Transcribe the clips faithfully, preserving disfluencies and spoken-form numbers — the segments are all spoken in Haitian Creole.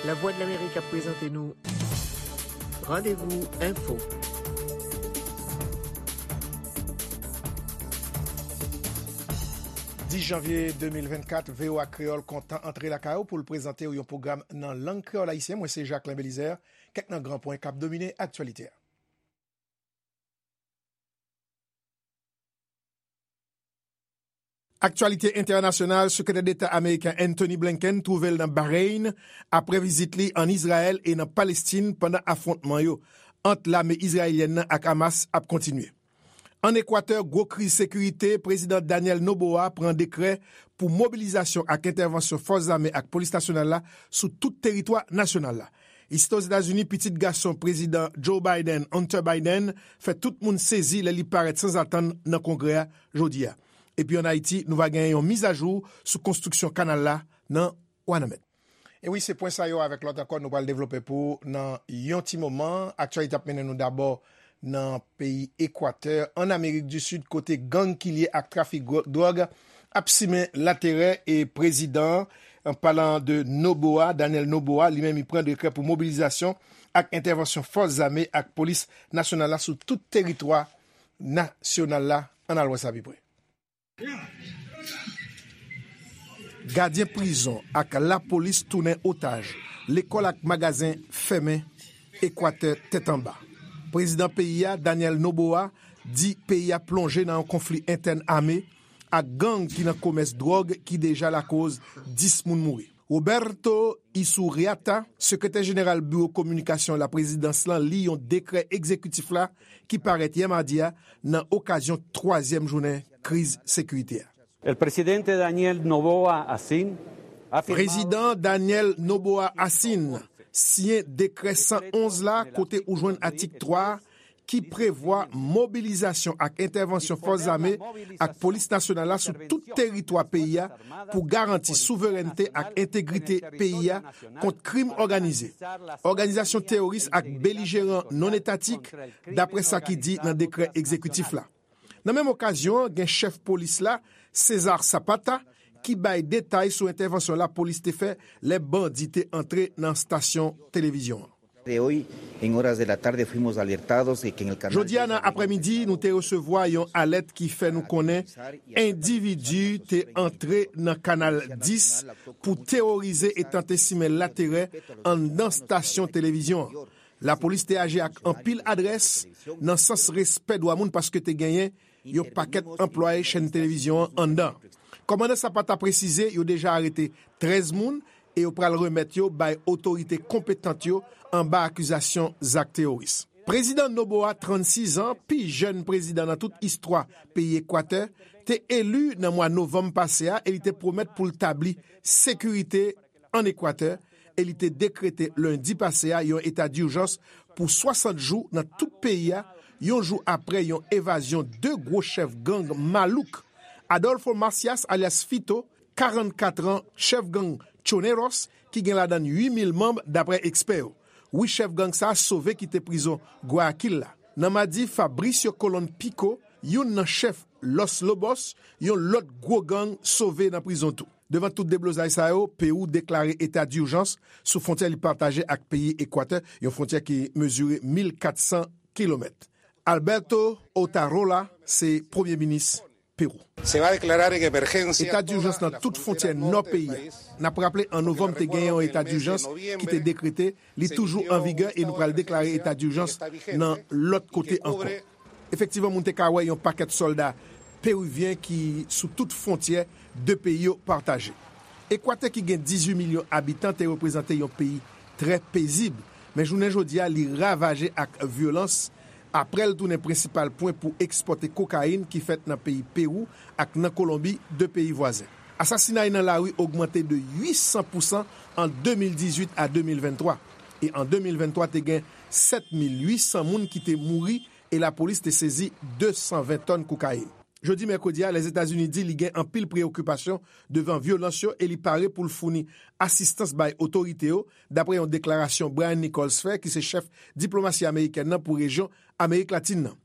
Lavwadlamerik ap prezante nou Randevou Enfo. Dis janvye de mil vennkat, V O A Kreyòl kontan antre lakay ou pou l prezante w yon pwogram nan lang kreyòl ayisyen. Mwen se Jacquelin Belizaire. Kèk nan gran pwen k ap domine aktyalite a. Aktyalite entènasyonal, Sekretè Deta ameriken Antony Blinken twouve l nan Bahreïn apre vizit li ann Izrayèl e nan Palestin pandan afwontman yo ant lame izrayelyèn nan ak Hamas ap kontinye. Ann Ekwatè, gwo kriz sekirite, Prezidan Daniel Noboa pran dekrè pou mobilizasyon ak entèvansyon fòs zame ak polis nasyonal la sou tout teritwa nasyonal la. Isi Ozetazini, pitit gason Prezidan Joe Biden, Hunter Biden, fè tout moun sezi lè li parèt sanzatann nan Kongrè a jodi a. Epi ann Ayiti, nou va genyen yon mizajou sou konstriksyon kanal la nan Wanament. E wi, se pwen sa yo avèk lòt ankò nou pral devlope pou w nan yon ti moman. Aktyalite ap mennen nou dabò nan peyi Ekwatè, ann Amerik di Sid, kote gang ki lye ak trafik gwo-, dwòg ap simen laterè e prezidan an, an palan de Noboa, Daniel Noboa, li menm li pran dekrè pou mobilizasyon ak entèvansyon fòs zame ak polis nasyonal la sou tout teritwa nasyonal la. Ann al wè sa pi pre. Gadyen prizon ak lapolis tounen otaj, lekòl ak magazen fèmen, Ekwatè tèt anba. Prezidan peyi a, Daniel Noboa, di peyi a plonje nan yon konfli entèn ame ak gang ki nan komès dwòg ki deja lakoz dis moun mouri. Roberto Isurriata, sekretè jeneral biwo kominikasyon laprezidans lan, li yon dekrè egzekitif la ki parèt yè madi a nan okazyon twazyèm jounen kriz sekirite a. El presidente Daniel Noboa Asin ha firmado Prezidan Daniel Noboa Asin siyen dekrè san onz la, kote ou jwenn atik twa ki prevwa mobilizasyon ak entèvansyon fòs zame ak polis nasyonal la sou tout teritwa peyi a pou garanti souverènte ak entegrite peyi a kont krim òganize, òganizasyon teworis ak belijeran non-etatik, dapre sa ki di nan dekrè egzekitif la. Nan menm okazyon an, gen chèf polis la, Cesar Zapata, ki bay detay sou entèvansyon lapolis te fè lè bandi te antre nan stasyon televizyon an. De hoy, en horas de la tarde, fuimos alertados de que en el canal Jodi a nan aprèmidi, nou te resevwa yon alèt ki fè nou konnen endividi te antre nan Kanal dis pou teworize e tante simen laterè anndan stasyon televizyon an. Lapolis te aji ak anpil adrès nan sans respè dwa moun, paske te genyen yon pakèt anplwaye chèn televizyon an anndan. Kòmandan Zapata presize yo deja arete trèz moun e yo pral remèt yo bay otorite konpetant yo anba akizasyon zak teworis. Prezidan Noboa, trannsis an, pi jèn prezidan nan tout istwa peyi Ekwatè, te eli nan mwa novanm pase a e li te pwomèt pou l tabli sekirite ann Ekwatè e li te dekrete lendi pase a yon eta dijans pou swasant jou nan tout peyi a, yon jou apre yon evazyon de gwo chèf gang malouk, Adolfo Macias alyas Fito, karannkat an, chèf gang Choneros, ki gen ladan l uit mil manm, dapre ekspè yo. Wi, chèf gang sa a sove kite prizon Guayaquil la. Nan madi, Fabricio Colón Pico, youn nan chèf Los Lobos, yon lòt gwo gang, sove nan prizon tou. Devan tout deblozay sa yo, Pewou deklare eta dijans sou fwontyè li pataje ak peyi Ekwatè, yon fwontyè ki mezire mil katsan kilomèt. Alberto Otarola se premye minis Pewou. Se va a declarar en emergencia. Eta dijans nan tout fwontyè nò peyi a. N ap raple, an novanm, te genyen yon eta dijans ki te dekrete, li toujou an vigè e nou pral deklare eta dijans nan lòt kote ankò. Efektivman, moun te ka wè yon pakèt sòlda perivyen ki sou tout fwontyè de peyi yo pataje. Ekwatè, ki gen dizuit milyon abitan, te reprezante yon peyi trè pezib, men jounen jodi a, li ravaje ak vyolans apre l tounen prensipal pwen pou ekspòte kokayin ki fèt nan peyi Pewou ak nan Kolonbi, de peyi vwazen. Asasinay nan lari ogmante de uitsan pousan an de mil dizuit a de mil venntwa, e an de mil venntwa te gen sèt mil uitsan moun ki te mouri e lapolis te sezi de san ven tòn kokayin. Jodi mèkredi a, Lèzetazini di li gen anpil preyokipasyon devan vyolans yo e li pare pou l founi asistans bay otorite yo, dapre yon deklarasyon Brian Nichols fè, ki se chèf diplomasi amerikèn nan pou rejyon Amerik Latin nan.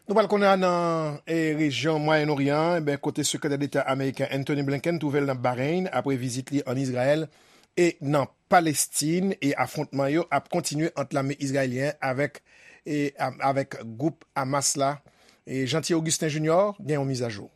Nou pral konnen nan e, rejyon Mwayen Oryan, e ben, kote Sekretè Deta ameriken Anthony Blinken twouve l nan Bahreyn apre vizit li ann Izrayèl e nan Palestin, e afwontman yo ap kontinye ant lame izrayelyen avèk, e, a- avèk gwoup Hamas la. E Jeanty Augustin Junior gen yon mizajou.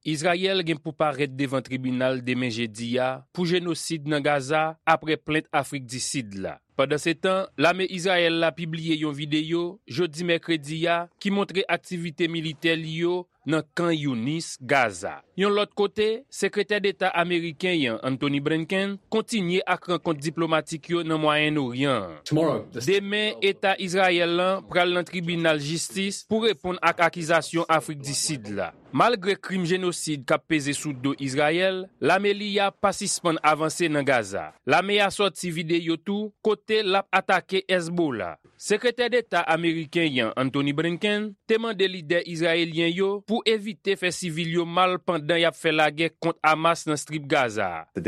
Izrayèl gen pou parèt devan tribinal demen jedi a pou jenosid nan Gaza apre plent Afrik di Sid la. Pandansetan, lame Izrayèl la pibliye yon videyo jodi mèkredi a ki montre aktivite militè li yo nan Kan Younis, Gaza. Yon lòt kote, Sekretè Deta ameriken an, Anthony Blinken, kontinye ak rankont diplomatik yo nan Mwayen Oryan an. Demen, Eta Izrayèl lan pral nan tribinal jistis pou reponn ak akizasyon Afrik di Sid la. Malgre krim jenosid k ap peze sou do Izrayèl, lame li a pa sispann avanse nan Gaza. Lame a sòti videyo tou kote l ap atake Hezbollah. Sekretè Deta ameriken an, Anthony Blinken, te mande lidè izrayelyen yo pou evite fè sivil yo mal pandan y ap fè lagè kont Hamas nan Strip Gaza a.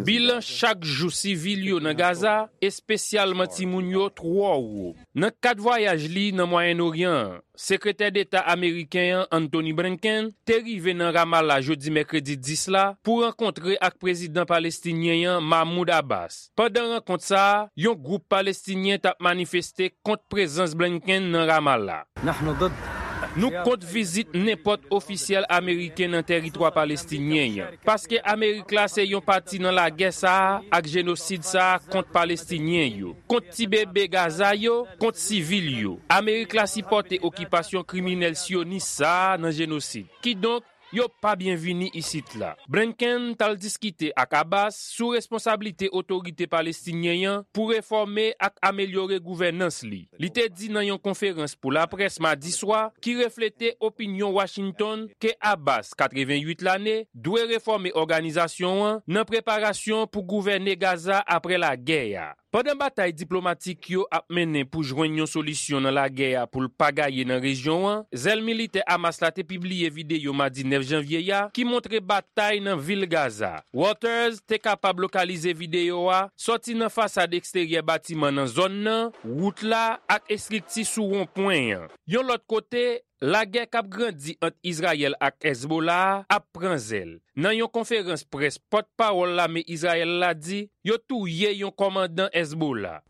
Bilan chak jou sivil yo nan Gaza, espesyalman timoun yo, twò wo. Nan kad vwayaj li nan Mwayen Oryan an, Sekretè Deta ameriken an, Anthony Blinken, te rive nan Ramallah jodi mèkredi dis la pou rankontre ak prezidan palestinyen an, Mahmoud Abbas. Pandan rankont sa a, yon gwoup palestinyen t ap manifeste kont prezans Blinken nan Ramallah. Nou kont vizit nenpòt ofisyèl ameriken nan tèritwa palestinyen an, paske Amerik la se yon pati nan lagè sa a ak jenosid sa a kont palestinyen yo, kont ti bebe Gaza yo, kont sivil yo. Amerik la sipòte okipasyon kriminèl syonis sa a nan jenosid. Kidonk, yo pa byenvini isit la. Blinken t al diskite ak Abbas sou responsablite otorite palestinyen an pou refòme ak amelyore gouvènans li. Li te di nan yon konferans pou laprès madi swa, ki reflete opinyon Washington, ke Abbas, katreventuit lane, dwe refòme òganizasyon an nan preparasyon pou gouvène Gaza apre lagè a. Pandan batay diplomatik yo ap mennen pou jwenn yon solisyon nan lagè a pou l pa gaye nan rejyon an, zèl militè Hamas la te pibliye videyo madi nèf janvye a ki montre batay nan vil Gaza. Reuters te kapab lokalize videyo a sòti nan fasad eksteryè batiman nan zòn nan, wout la ak estrikti sou wonpwen an. Yon lòt kote, lagè k ap grandi ant Izrayèl ak Hezbollah a ap pran zèl. Nan yon konferans près, pòtpawòl lame Izrayèl la di yo touye yon kòmandan Hezbollah.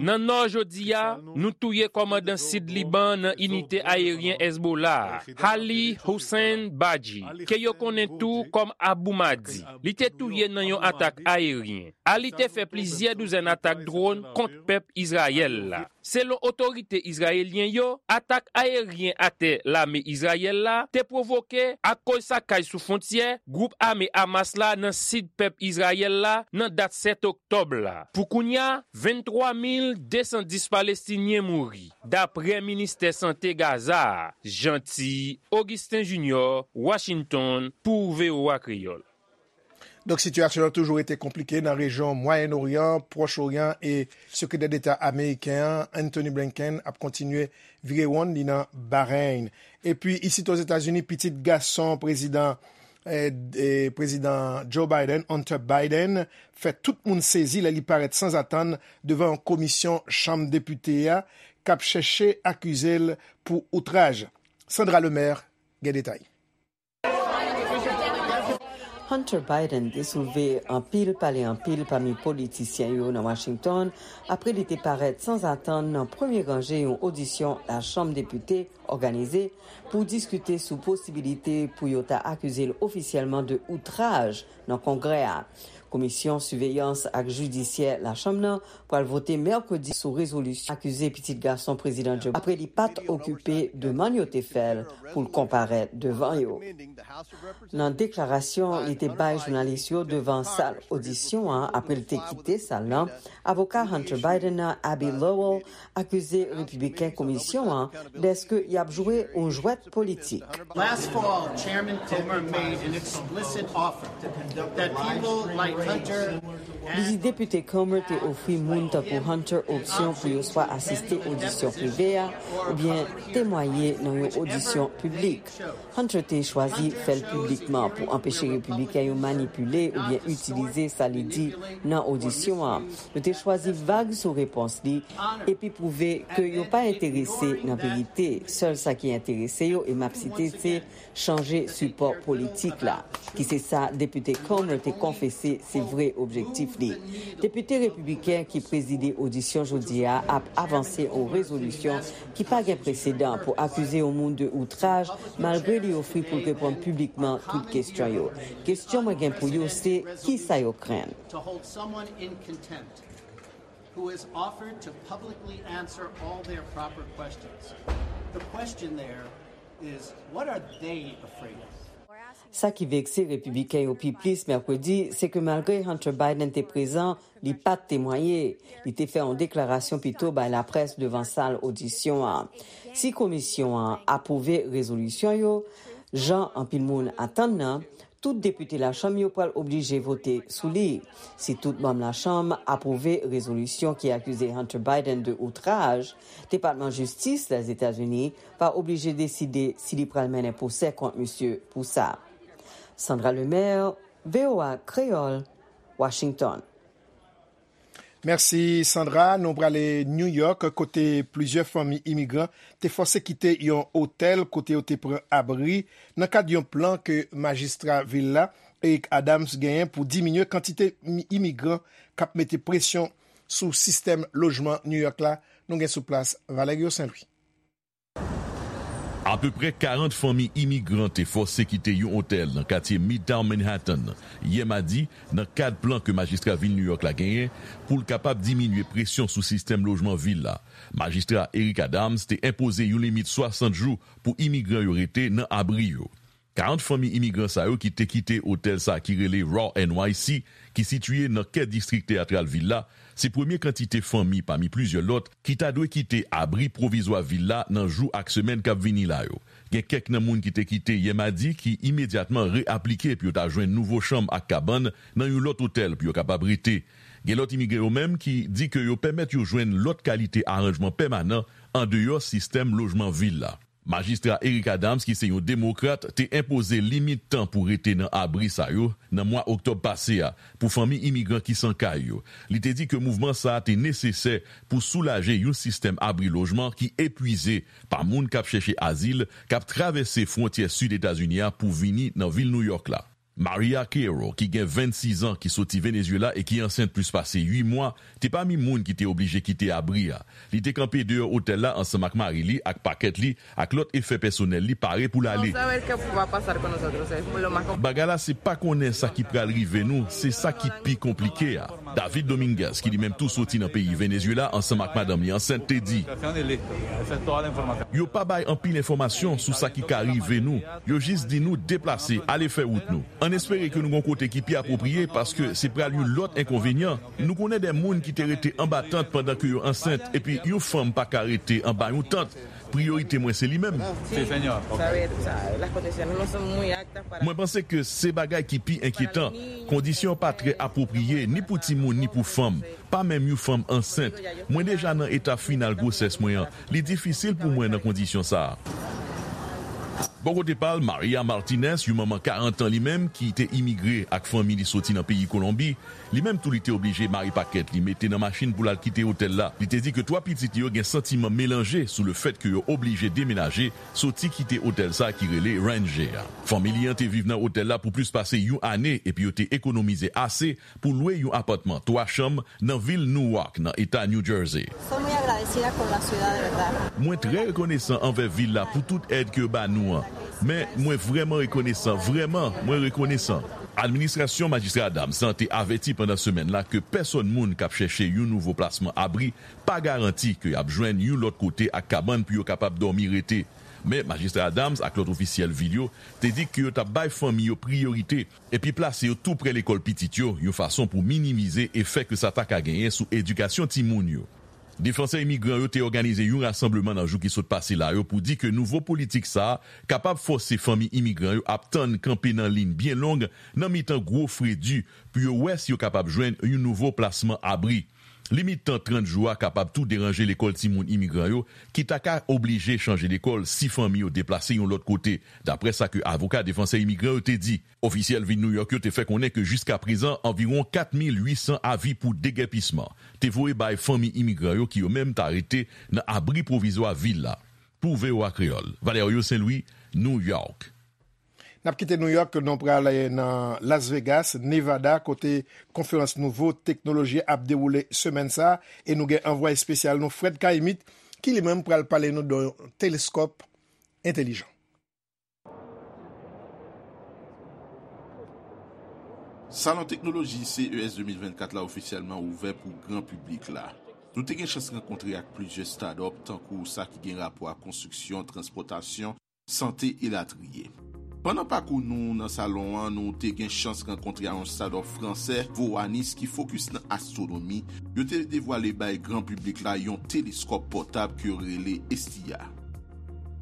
Nan nò jodi a, nou touye kòmandan sid Liban nan inite ayeryen Hezbollah a, Ali Hussein Baji, ke yo konnen tou kòm Abu Mahdi. Li te touye nan yon atak ayeryen. Ali te fè plizyè douzèn atak dwòn kont pèp Izrayèl la. Selon otorite izrayelyen yo, atak ayeryen atè lame Izrayèl la te pwovoke akoz sakaj sou fwontyè gwoup ame Hamas la nan sid pèp Izrayèl la nan dat sèt oktòb la. Pou kounye a, venntwa mil desan dis Palestinyen mouri, dapre ministè sante Gaza a. Jeanty Augustin Junior, Washington, pou V O A Kreyòl. Donk, sitiyasyon an toujou rete konplike nan rejyon Mwayen Oryan, Pwòch Oryan, e Sekretè Deta ameriken an, Anthony Blinken, ap kontinye vire wonn li nan Bahreyn. Epi, isit Ozetazini, pitit gason prezidan, eh, eh, prezidan Joe Biden, Hunter Biden, fè tout moun sezi lè li parèt sanzatann devan yon komisyon Chanm Depite a k ap chèche akize l pou outraj. Sandra Lemaire gen detay. Hunter Biden te soulve anpil pale anpil pami politisyen yo nan Washington apre li te parèt sanzatann nan premye ranje yon odisyon Lachanm Depite òganize pou diskite sou posibilite pou yo ta akize l ofisyèlman de outraj nan Kongrè a. Komisyon Siveyans ak Jidisyè Lachanm nan pral vote mèkredi sou rezolisyon akize pitit gason Prezidan Joe Biden apre li pa t okipe demann yo te fè l pou l konparèt devan yo. Nan deklarasyon li te bay jounalis yo devan sal odisyon an apre l te kite sal lan, avoka Hunter Biden nan, Abbe Lowell, akize repibliken komisyon an dèske y ap jwe yon jwèt politik. Last fall, Chairman Comer made an explicit offer that people like Li di Depite Comer te ofri moun tankou Hunter opsyon pou yo swa asiste odisyon prive a oubyen temwaye nan yon odisyon piblik. Hunter te chwazi fè l piblikman pou anpeche Repibliken yo manipile oubyen itilize sa li di nan odisyon an. Yo te chwazi vag sou repons li epi pwouve ke yo pa enterese nan verite. Sèl sa ki enterese yo, e m ap site, se chanje sipò politik la, ki se sa Depite Comer te konfese se vre objektif li. Depite repibliken ki prezide odisyon jodi a ap avanse yon rezolisyon ki pa gen presedan pou akize yon moun de outraj, malgre li ofri pou l reponn piblikman tout kesyon yo. Kesyon mwen gen pou yo se, kisa yo krenn? To hold someone in contempt who has offered to publicly answer all their proper questions. The question there is, what are they afraid of? Sa ki vekse repibliken yo pi plis mèkredi, se ke malgre Hunter Biden te prezan, li pa t temwaye. Li te fè yon deklarasyon pito bay laprès devan sal odisyon an. Si komisyon an apwouve rezolisyon yo, jan anpil moun atann nan, tout depite lachanm yo pral oblije vote sou li. Si tout manm lachanm apwouve rezolisyon ki akize Hunter Biden de outraj, Depatman Jistis Lèzetazini va oblije deside si li pral mennen pwosè kont misye pou sa. Sandra Lemaire, V O A Kreyòl, Washington. Mèsi, Sandra. Nou prale New York, kote plizyè fanmi imigran te fòse kite yon otèl kote yo te pran abri nan kad yon plan ke majistra vil la, Eric Adams, genyen pou diminye kantite imigran k ap mete presyon sou sistèm lojman New York la. Nou gen sou plas Valerio Saint Louis. Apeprè karant fanmi imigran te fòse kite yon otèl nan katye Midtown Manhattan yè madi nan kad plan ke majistra vil New York la genyen pou l kapab diminye presyon sou sistèm lojman vil la. Majistra Eric Adams te enpoze yon limit swasant jou pou imigran yo rete nan abri yo. Karant fanmi imigran sa yo ki te kite otèl sa ki rele Raw N Y C, ki sitiye nan kè distrik teyatral vil la, se premye kantite fanmi pami plizyè lòt ki ta dwe kite abri pwovizwa vil la nan jou ak semèn k ap vini la yo. Gen kèk nan moun ki te kite yè madi ki imedyatman re-aplike pou yo ta jwenn nouvo chanm ak kabann nan yon lòt otèl pou yo kapab rete. Gen lòt imigre yo menm ki di ke yo pèmèt yo jwenn lòt kalite aranjman pèmanan andeyò sistèm lojman vil la. Majistra Eric Adams, ki se yon demokrat, te enpoze limit tan pou rete nan abri sa yo nan mwa oktòb pase a pou fanmi imigran ki san kay yo. Li te di ke mouvman sa a te nesesè pou soulaje yon sistèm abri lojman ki epwize pa moun k ap chèche azil k ap travèse fwontyè sid Etazini a pou vini nan vil Nouyòk la. Maria Carroll, ki gen vennsis an, ki soti Venezuela e ki ansent plis pase uit mwa, te pami moun ki te oblije kite abri a. Li te kanpe deyò otèl la ansanm ak mari li ak pakèt li ak lòt efè pèsonèl li pare pou l ale. Bagay la se pa konnen sa ki pral rive nou, se sa ki pi konplike a. David Dominguez, ki li menm tou soti nan peyi Venezuela ansanm ak madanm li ansent, te di, yo pa bay anpil enfòmasyon sou sa ki ka rive nou. Yo jis di nou deplase, ale fè wout nou. Ann espere ke nou gon kote ki pi apwopriye paske se pral yon lòt enkonvenyan. Nou konnen de moun ki te rete anba tant pandan ke yo ansent epi yon fanm pa ka rete anba yon tant. Priyorite mwen se li menm. Mwen panse ke se bagay ki pi enkyetan. Kondisyon pa trè apwopriye ni pou timoun ni pou fanm. Pa menm yon fanm ansent. Mwen deja nan eta final gwosès mwen an. Li difisil pou mwen nan kondisyon sa a. Bò kote pa l, Maria Martinez, yon manman karant an li menm ki te imigre ak fanmi li soti nan peyi Kolonbi, li menm tou li te oblije mare pakèt li, mete nan machin pou l al kite otèl la. Li te di ke twa pitit li yo gen santiman melanje sou lefèt ke yo oblije demenaje, soti kite otèl sa ki rele Ranger a. Fanmi li an te viv nan otèl la pou plis pase yon ane epi yo te ekonomize ase pou lwe yon apatman twa chanm nan vil Newark, nan eta New Jersey. Mwen trè rekonesan anvè vil la pou tout èd ke yo ba nou an. Men, mwen vrèman rekonesan, vrèman, mwen rekonesan. Administrasyon Majistra Adams lan te avèti pandan semèn la ke pèsòn moun k ap chèche yon nouvo plasman abri pa garanti ke y ap jwenn yon lòt kote ak kabann pou yo kapab dòmi rete. Men, Majistra Adams ak lòt ofisyèl vil yo te di ke yo t ap bay fanmi yo priyorite epi plase yo tou prè lekòl pitit yo, yon fason pou minimize efè ke sa ta ka genyen sou edikasyon timoun yo. Defansè imigran yo te òganize yon rasanbleman nan jou ki sot pase la yo pou di ke nouvo politik sa a kapab fòse fanmi imigran yo ap tann kanpe nan liy byen long nan mitan gwo fredi pou yo wè si yo kapab jwenn yon nouvo plasman abri. Limit tan trant jou a kapab tou deranje lekòl timoun imigran yo ki ta ka oblije chanje lekòl si fanmi yo deplase yon lòt kote, dapre sa ke avoka defansè imigran yo te di. Ofisyèl vil New York yo te fè konnen ke jiskaprezan anviwon kat mil uit san avi pou degèpisman te voye bay fanmi imigran yo ki yo menm ta rete nan abri pwovizwa vil la. Pou V O A Kreyòl, Valerio Saint Louis, New York. N ap kite New York, nou pral nan Las Vegas, Nevada, kote konferans nouvo teknoloji ap dewoule semèn sa a, e nou gen anvwaye espesyal nou, Fred Caïmite, ki li menm pral pale nou de yon teleskòp entèlijan. Salon teknoloji C E S de mil vennkat la ofisyèlman ouvè pou gran piblik la. Nou te gen chans rankontre ak plizyè start-up, tankou sa ki gen rapò ak konstriksyon, transpòtasyon, sante, elatriye. Pandan pakou nou nan salon an, nou te gen chans rankontre ak yon start-up fransè, Voanis, ki fokis nan astwonomi. Yo te devwale bay gran piblik la yon teleskòp pòtab ke yo rele Estia.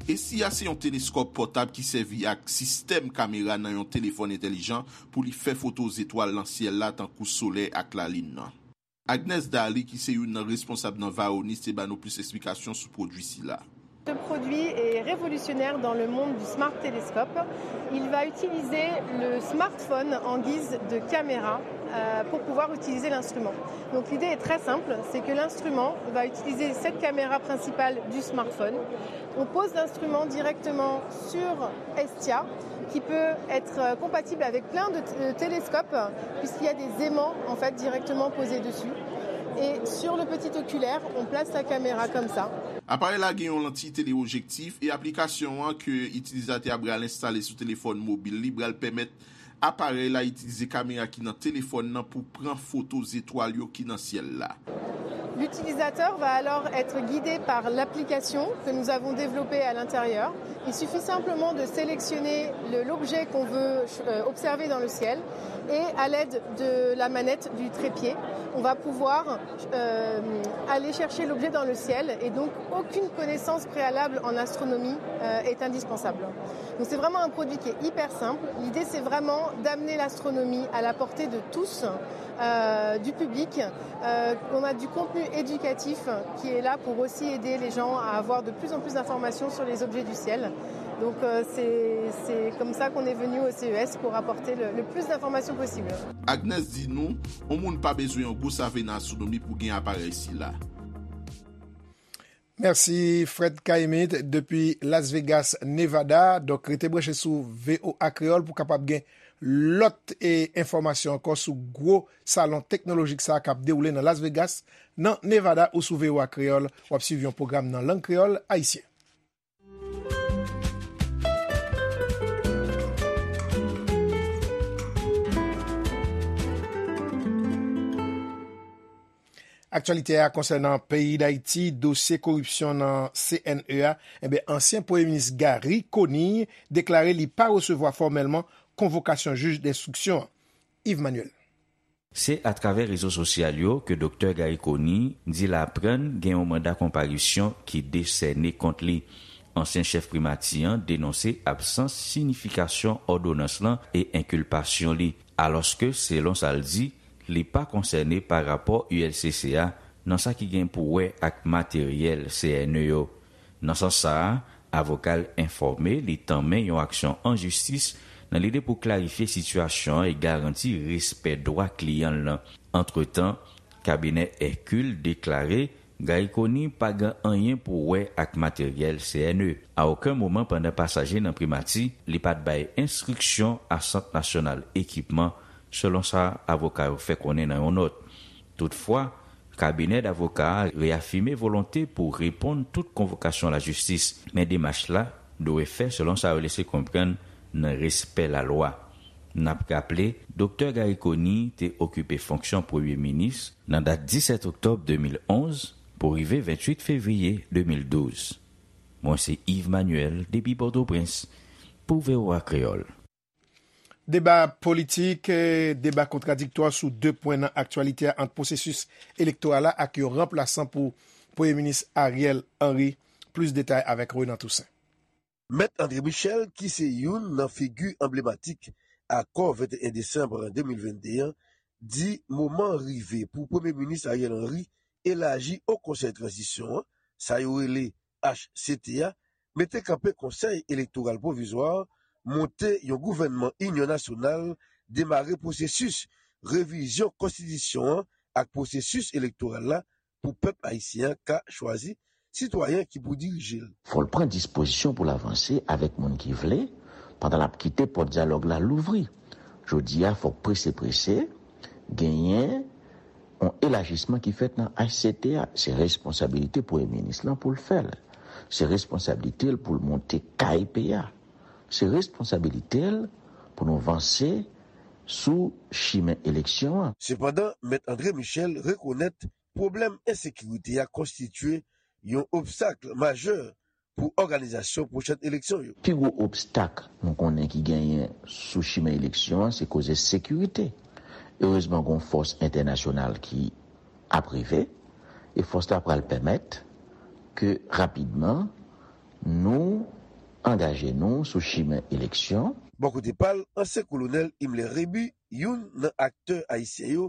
Estia se yon teleskòp pòtab ki sèvi ak sistèm kamera nan yon telefòn entèlijan pou li fè foto zetwal nan syèl la, tankou solèy ak lalin nan. Agnes Daly, ki se youn nan responsab nan Vaonis, te ba nou plis esplikasyon sou pwodui sila. Ce produit est révolutionnaire dans le monde du Smart Telescope. Il va utiliser le smartphone en guise de caméra euh, pour pouvoir utiliser l'instrument. Donc l'idée est très simple, c'est que l'instrument va utiliser cette caméra principale du smartphone. On pose l'instrument directement sur Estia, qui peut être euh, compatible avec plein de, de télescopes, puisqu'il y a des aimants en fait directement posés dessus. Et sur le petit oculaire, on place la caméra comme ça. Aparèy la gen yon lantiy teleojektif e aplikasyon an ke itilizatè a pral enstale sou telefòn mobil li pral pèmèt aparèy la itilize kamera ki nan telefòn nan pou pran foto zetwal yo ki nan syèl la. L'utilisateur va alors être guidé par l'application que nous avons développée à l'intérieur. Il suffit simplement de sélectionner l'objet qu'on veut euh, observer dans le ciel et à l'aide de la manette du trépied, on va pouvoir euh, aller chercher l'objet dans le ciel et donc aucune connaissance préalable en astronomie euh, est indispensable. Donc c'est vraiment un produit qui est hyper simple. L'idée c'est vraiment d'amener l'astronomie à la portée de tous, euh, du public. Euh, on a du contenu éducatif qui est là pour aussi aider les gens à avoir de plus en plus d'informations sur les objets du ciel. Donc euh, c'est comme ça qu'on est venu au C E S pour apporter le, le plus d'informations possible. Agnes di nou, yon moun pa bezwen yon gwo save nan astwonomi pou gen aparèy sila. Mèsi Fred Caïmite depi Las Vegas, Nevada. Donk rete branche sou V O A Kreyòl pou kapab gen lòt e enfòmasyon ankò sou gwo salon teknolojik sa a k ap dewoule nan Las Vegas, nan Nevada ou sou V O A Kreyòl. W ap swiv yon pwogram nan lang kreyòl ayisyen. Aktyalite a konsènan peyi Dayiti, dosye koripsyon nan C N E a, enben ansyen premye minis Garry Conille deklare li pa resevwa fòmèlman konvokasyon jij denstriksyon an. Yves Manuel. Se atravè rezo sosyal yo ke Doktè Garry Conille di l aprann gen yon manda konparisyon ki desène kont li. Ansyen chèf primati an denonse absans siyifikasyon òdonans lan e enkilpasyon li, alòske selon sa l di, li pa konsène pa rapò U L C C a nan sa ki gen pou wè ak materyèl C N E yo. Nan sans sa a, avoka l enfòme li tanmen yon aksyon an jistis nan lide pou klarifye sitiyasyon an e garanti respè dwa kliyan l lan. Antretan, kabinè Hercule deklare Garry Conille pa gen anyen pou wè ak materyèl C N E. A okenn moman pandan pasaj li nan primati, li pa t bay enstriksyon a Sant Nasyonal Ekipman, selon sa avoka yo fè konnen nan yon nòt. Toutfwa, kabinè davoka a reyafime volonte pou reponn tout konvokasyon lajistis, men demach la dwe fè selon sa yo lese konprann nan respè lalwa. N ap raple, Doktè Garry Conille te okipe fonksyon premye minis nan dat disèt oktòb de mil onz pou rive venntuit fevriye de mil douz. Mwen se Yves Manuel depi Pòtoprens pou V O A Kreyòl. Deba politik, eh, deba kontradiktwa sou de pwen nan aktyalite a ant pwosesis elektoral la ak yon ranplasan pou Premye Minis Ariel Henry. Plis detay avèk Renan Toussaint. Mèt André Michel, ki se youn nan figi anblematik akò venteyen desanm de mil vennde an, di moman an rive pou Premye Minis Ariel Henry elaji Wo Konsèy Tranzisyon an, sa yo rele H C T a, mete kanpe Konsèy Elektoral Pwovizwa, monte yon gouvènman inyon nasyonal, demare pwosesis revizyon konstitisyon an ak pwosesis elektoral la pou pèp ayisyen an ka chwazi sitwayen ki pou dirije l. Fò l pran dispozisyon pou l avanse avèk moun ki vle, pandan l ap kite pòt dyalòg la louvri. Jodi a, fòk prese prese genyen yon elajisman ki fèt nan H C T a. Se responsablite Premye Minis lan pou l fè l. Se responsablite l pou l monte K I P a. Se responsablite l pou nou vanse sou chimen eleksyon an. Sepandan, Mèt André Michel rekonèt pwoblèm ensekirite a konstitye yon obstak majè pou òganizasyon pwochèn eleksyon yo. Pi gwo obstak nou konnen ki genyen sou chimen eleksyon an, se koze sekirite. Erezman, gen yon fòs entènasyonal ki ap rive, e fòs la pral pèmèt ke rapidman nou angaje nou sou chimen eleksyon. Bò kote pa l, ansyen kolonèl Himmler Rébu, youn nan aktè ayisyen yo,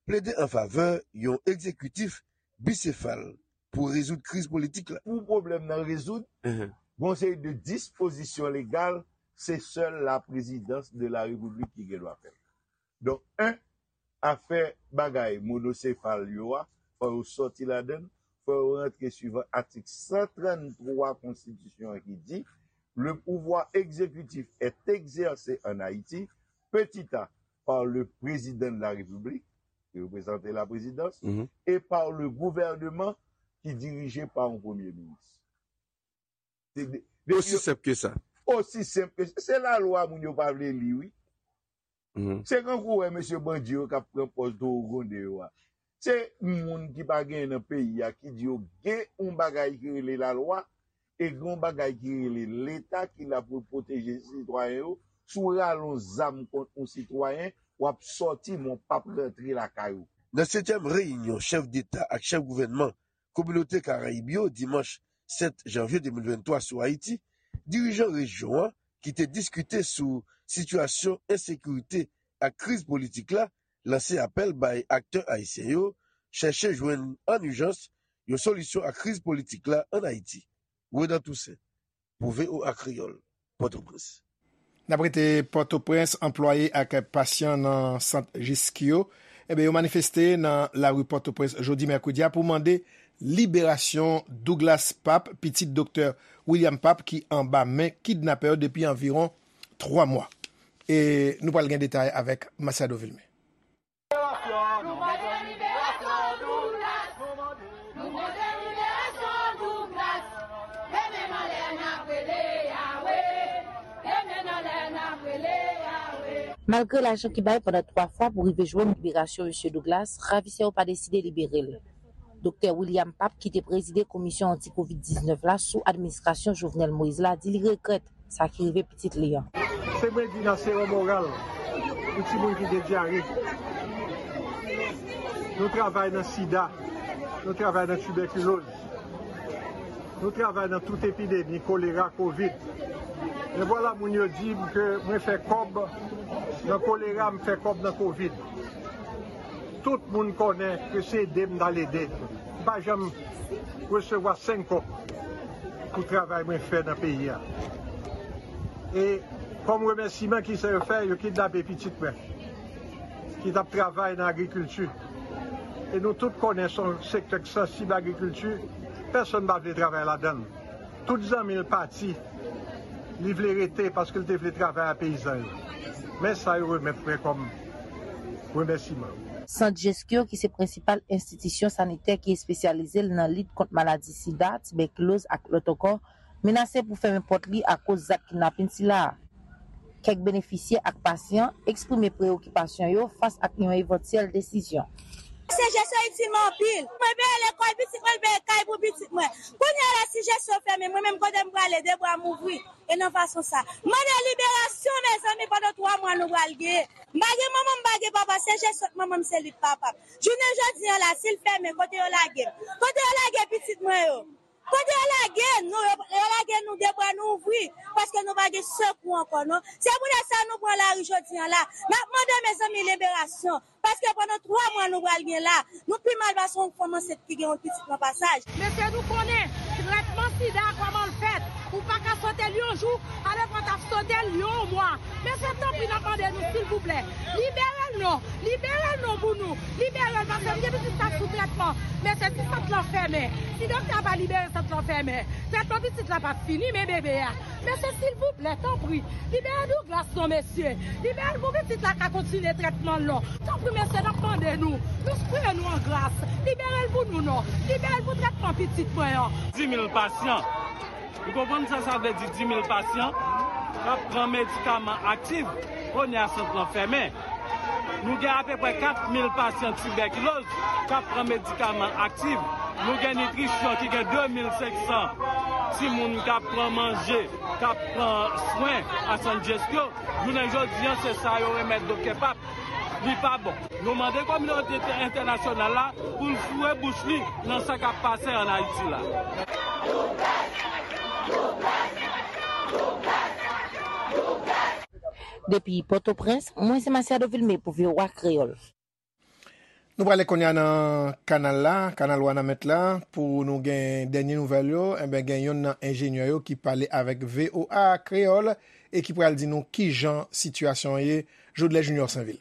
plede an favè yon egzekitif bisefal pou rezoud kriz politik la. Pou pwoblèm nan rezoud, gen yon seri de dispozisyon legal, se sèl la présidence de la République ki gen dwa fè l. Donk, en, afè bagay monosefal yo a, fò yo sòti ladan l, fò yo rantre swivan atik san trann twa konstitisyon an ki di, le pouvoir exécutif est exercé en Haïti, petit a, par le président de la République, ki reprezante la présidence, et par le gouvernement, ki dirije pa yon premye minis. Se de- Osi senp ke sa. Osi senp ke sa. Se lalwa moun yo pa vle li, wi. Se kankou wè mesye bandi yo k ap pran pòz towo gwonde yo a. Se moun ki pa genyen nan peyi a ki di yo gen yon bagay ki rele lalwa e gen yon bagay ki rele Leta ki la pou l pwoteje sitwayen yo. Si w rale yon zam kont yon sitwayen, w ap sòti, men w p ap rantre lakay ou. Nan setyèm reyinyon chèf deta ak chèf gouvènman Kominote Karayib yo dimanch sèt janvye de mil venntwa sou Ayiti, dirijan rejyon an, ki te diskite sou sitiyasyon ensekirite ak kriz politik la, lanse apèl bay aktè ayisyen yo chèche jwenn an ijans yon solisyon a kriz politik la ann Ayiti. Renan Toussaint, pou V O A Kreyòl, Pòtoprens. N ap rete Pòtoprens, anplwaye ak pasyan nan sant Jeskyo, enben, yo manifeste nan lari Pòtoprens jodi mèkredi a pou mande liberasyon Douglas Pape, pitit doktè William Pape, ki anba men kidnapè yo depi anviwon twa mwa. E nou pral gen detay avèk Masiado Vilmé. Malgre lajan ki bay pandan twa fwa pou rive jwenn liberasyon Mesye Douglas, ravisè yo pa deside libere l. Doktè William Pape, ki te prezide komisyon anti kovid diznèf la sou administrasyon Jovenel Moïse la, di li regrèt sa ki rive pitit li an. Se mwen di nan sewo moral pou timoun ki gen dyare. Nou travay nan sida, nou travay nan tibèkiloz, nou travay nan tout epidemi, kolera, kovid. Men vwala moun yo di m ke mwen fè kòb nan kolera, m fè kòb nan kovid. Tout moun konnen ke se ede m t al ede. M pa janm resevwa senk kòb pou travay mwen fè nan peyi a. E kòm remèsiman, kisa yo fè? Yo kidnape pitit mwen ki t ap travay nan agrikilti. E nou tout konnen se yon sektè ki sansib, agrikilti. Pèsonn pa vle travay ladan l. Tout zanmi l pati. Li vle rete paske l te vle travay a peyizan yo. Men sa yo remèt mwen kòm remèsiman. Sant Jeskyo, ki se prensipal enstitisyon sanitè ki espesyalize l nan lit kont maladi sida, tibèkiloz ak lòt ankò, menase pou fèmen pòt li akoz zak kidnapin sila a. Kèk benefisye ak pasyan eksprime preyokipasyon yo fas ak yon evantyèl desizyon. Se jesyon itil mwen anpil. Mwen peye lekòl pitit mwen, peye kay pou pitit mwen. Kounye a la, si jesyon fèmen, mwen menm kote m prale, de bra m ouvri. E nan fason sa. M mande liberasyon, mezanmi, pandan twa mwa nou pral genyen. M pa gen manman, m pa gen papa, se jesyon manman m, se li k papa m. Jounen jodi a la, si l fèmen, kote yo lage m? Kote yo lage pitit mwen yo? Kote yo lage nou? Yo, yo lage nou de bra nou ouvri, paske nou pa gen sekou ankò, non. Se poutèt sa nou pran lari jodi a la. N ap mande, mezanmi, liberasyon. Paske pandan twa mwa nou pral gen la, nou pi mal pase yon fanm ansent ki gen yon pitit nan pasaj. Mesye, nou konnen trètman sida, kòman l fèt. Ou pa ka sote l yon jou, alòs w t ap sote l yon mwa. Mesye, tanpri, n ap mande nou, silvouplè, libere l non, libere l non pou nou, libere l, paske m gen pitit k ap sou trètman. Mesye, si sant lan fèmen, si doktè a pa libere sant lan fèmen, trètman pitit la p ap fini, men bebe a. Mesye, silvouplè, tanpri, libere Douglas non, mesye. Libere l pou pitit la ka kontinye trètman l non. Tanpri, mesye, n ap mande nou. Nou sipriye nou an gras. Libere l pou nou non. Libere l pou trètman pitit mwen an. Dis mil pasyan. Ou konprann sa sa vle di, dis mil pasyan k ap pran medikaman aktif, kounye a sant lan fèmen. Nou gen apeprè kat mil pasyan tibèkiloz k ap pran medikaman aktif. Nou gen nitrisyon ki gen de mil senk san timoun k ap pran manje, k ap pran swen a San Jessico. Jounen jodi a, se sa yo remèt doktè Pap. Li pa bon. Nou mande kominote entènasyonal la pou l foure bouch li nan sa k ap pase ann Ayiti la. Depi Pòtoprens, mwen se Masiado Vilmé pou V O A Kreyòl. Nou prale kounye a nan kanal la, kanal Wanament la, pou nou gen dènye nouvèl yo. Enben, gen youn nan enjenyè yo ki pale avèk V O A Kreyòl e ki pral di nou kijan sitiyasyon an ye. Jodlè Junior Sainvil.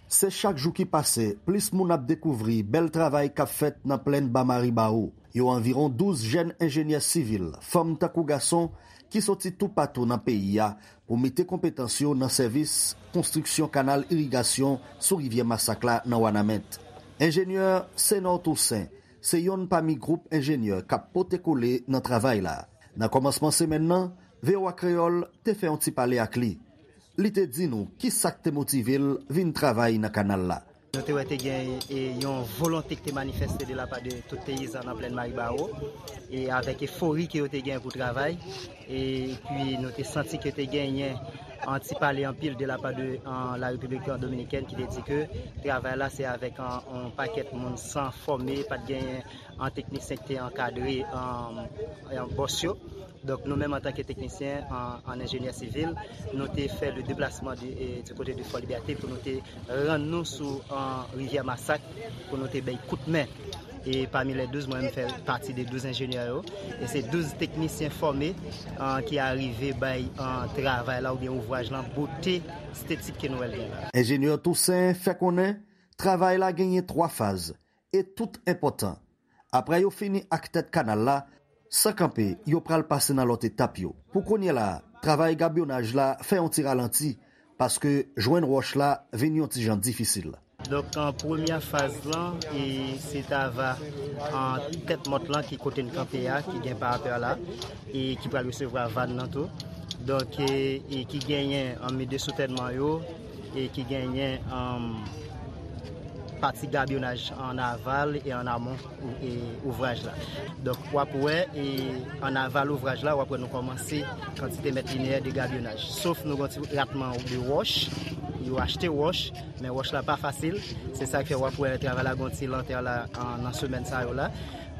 Se chak jou ki pase, plis moun ap dekouvri bèl travay k ap fèt nan Plèn Ba Maribawo. Yo anviwon douz jèn enjenyè sivil, fanm tankou gason, ki soti toupatou nan peyi a pou mete konpetans yo nan sèvis konstriksyon kanal irigasyon sou rivyè Masak la nan Wanament. Enjenyè Senor Toussaint se yonn pami gwoup enjenyè k ap pote kole nan travay la. Nan kòmansman semèn nan, V O A Kreyòl te fè yon ti pale ak li. Li te di nou ki sa k te motive l vin travay nan kanal la. Nou te wè te gen, e, yon volonte ki te manifeste de la pa de tout peyizan nan Plèn Maribawo, e avèk efori ke yo te gen pou travay, epi nou te santi ke te genyen an ti pale anpil de la pa de, an, la Repiblik Dominikèn ki te di ke travay la se avèk an, an pakèt moun san fòme, pa t genyen an teknisyen ki te ankadre, an, an bòs yo. Donk, nou menm, antanke teknisyen, an, an enjenyè sivil, nou te fè le deplasman di, e, di kote de Fò Libète pou nou te rann nou sou, an, rivyè Masak, pou nou te bay kout men. E pami lè douz, mwen menm fè pati de douz enjenyè yo. E se douz teknisyen fòme, an, ki arive bay, an, travay la oubyen ouvraj lan bote estetik ke nou wè l gen la. Enjenyè Toussaint fè konnen travay la genyen twa faz e tout enpòtan. Apre yo fini ak tèt kanal la, san kanpe, yo pral pase nan lòt etap yo. Pou kounye la, travay gabyonaj la fè yon ti ralanti, paske jwenn wòch la vin yon ti jan difisil. Donk, an premyè faz lan, e se t ava, an tèt mòt lan ki kote n kanpe a, ki gen parapè la, e ki pral resevwa van nan tou. Donk, e, e ki genyen an mi de soutènman yo, e ki genyen, an, pati gabyonaj an aval e an amon ou-, e ouvraj la. Donk, w ap wè, e an aval ouvraj la, w ap wè nou kòmanse kantite mèt lineyè de gabyonaj. Sof nou gon ti ratman de wòch, yo achte wòch, men wòch la pa fasil. Se sa k fè w ap wè travay la gon ti lantè la, an, nan semèn sa yo la.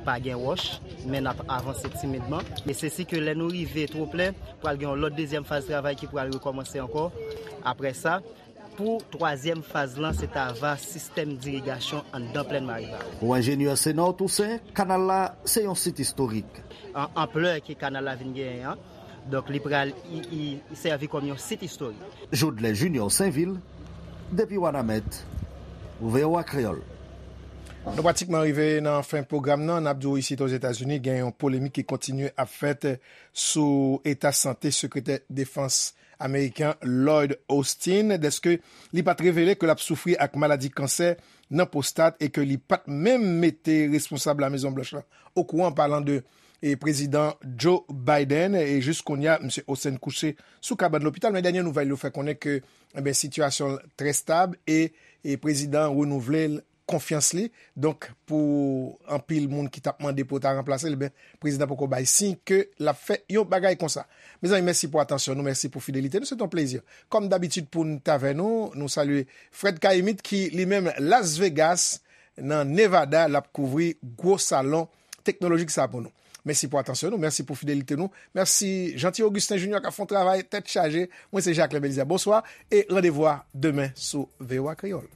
Pa gen wòch, men n ap avanse timidman. E se si ke lè nou rive twoplen, pral gen yon lòt dezyèm faz travay ki pral rekòmanse ankò. Apre sa, pou twazyèm faz lan, se t ava sistèm dirigasyon anndan Plèn Maribawo. Pou enjenyè Senor Toussaint, kanal la se yon sit istorik. An, anplè ke kanal la vin genyen an, donk li pral, i, i, i sèvi kòm yon sit istorik. Jodlè Junior Sainvil, depi Wanament, pou V O A Kreyòl. Nou pratikman rive nan fen pwogram nan. N ap di w isit Ozetazini, gen yon polemik ki kontinye ap fèt sou eta sante sekretè defans ameriken Lloyd Austin, dèske li pa t revele ke l ap soufri ak maladi kansè nan pwostat e ke li pa t menm mete responsab Lamezon Blanch lan okouran, palan de, e, Prezidan Joe Biden. E jis kounye a, Misye Austin kouche sou kabann lopital, men dènye nouvèl yo fè konnen ke, enben, sitiyasyon l trè stab e, e prezidan an renouvle l konfyans li. Donk, pou anpil moun ki t ap mande pou yo ta ranplase l, ebyen, prezidan poko bay siy ke l ap fè yon bagay konsa. Mezanmi, mèsi pou atansyon nou, mèsi pou fidelite nou, se t yon plezi. Kòm dabitid pou n t avè nou, nou salye Fred Caïmite ki li menm Las Vegas, nan Nevada, l ap kouvri gwo salon teknolojik sa pou nou. Mèsi pou atansyon nou, mèsi pou fidelite nou, mèsi Jeanty Augustin Junior k ap fè yon travay tèt chaje. Mwen se Jacquelin Belizaire, bonswa e randevou a demen sou V O A Kreyòl.